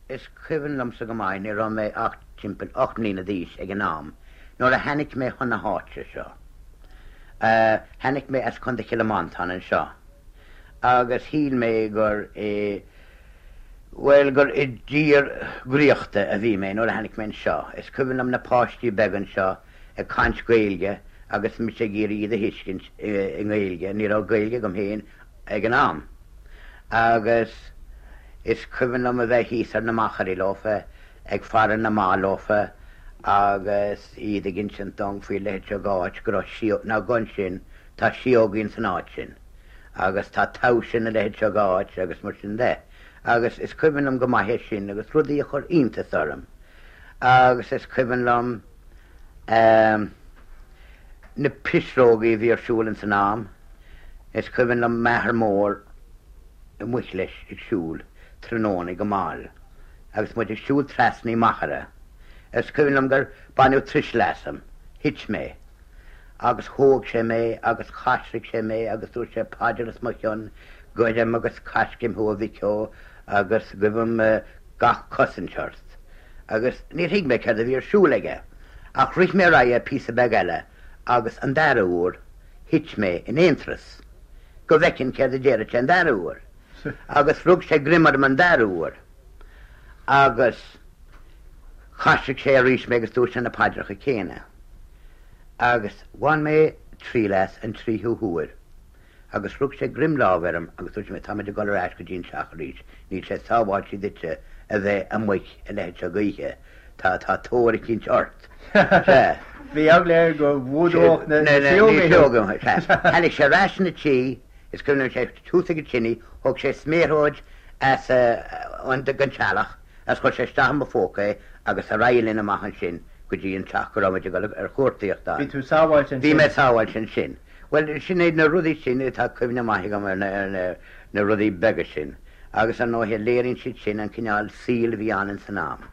Is cuimhin liomsa go maith, ní raibh mé ach timpeall 8 mbliana d'aois ag an am, nuair a thainic mé chun na háite seo. Thainic mé as Contae Chill Mhantáin anseo agus shíl mé gur i, bhuel, gur i dtír dhraíochta a bhí mé nuair a thainic mé anseo. Is cuimhin liom na páistí beaga anseo ag caint Gaeilge agus mise ag iarraidh iad a thuiscint i nGaeilge, ní raibh Gaeilge agam féin ag an am. Agus is cuimhin liom a bheith thíos ar na machairí leofa, ag faire na mba leofa agus iad ag insint dom faoi leithéid seo d'áit, go raibh síóg, ná gabh ansin, tá síógaí ins an áit sin agus tá taibhse ina leithéid seo d'áit agus mar sin de. Agus is cuimhin liom go maith é sin agus rudaí a chuir iontas orm. Agus is cuimhin liom ehm na pisreogaí a bhí ar siúl ins an am. Is cuimhin liom m'athair mór amuich leis ag siúl tráthnóna go mall agus muid ag siúl trasna i machaire. Is cuimhin liom gur baineadh tuiseal asam, thit mé, agus thóg sé mé agus choisric sé mé agus dúirt sé paidir os mo chionn, goirim agus coisricim thú a mhic ó agus guibhim gach cosaint ort. Agus níor thuig mé céard a bhí ar siúl aige ach rith mé ar aghaidh píosa beag eile agus an dara huair thit mé in aon turas go bhfeicfinn céard a déarfadh sé an dara huair. Agus rug sé greim orm an dara huair agus choisric sé arís mé agus dúirt sé na paidreacha céanna. Agus bhain mé triail as an tríú huair agus rug sé greim láimhe orm agus dúirt sé, táimid ag dul ar ais go dtí an teach arís, níl sé sábháilte duitse a bheith amuigh a leithéid seo d'oíche. Tá, tá tóir eicínt ort. Sea. Bhí eagla air go bhfuadódh na síóga thú. Sea. Tháinig sé ar ais 'na tí, is cuimhin liom sé thuas ag an tine, thóg sé sméaróid as an den teallach agus chuir sé isteach i mo phóca é agus ar aghaidh linn amach ansin go dtí an teach go raibh muid ag dul ar chuartaíocht ann. Bhí tú sábháilte ansin. Bhí mé sábháilte ansin. Bhuel, sin iad na rudaí sin atá cuimhne maith agam ar na rudaí beaga sin agus ar ndóighe léiríonn siad sin an cineál saoil a bhí ann ins an am.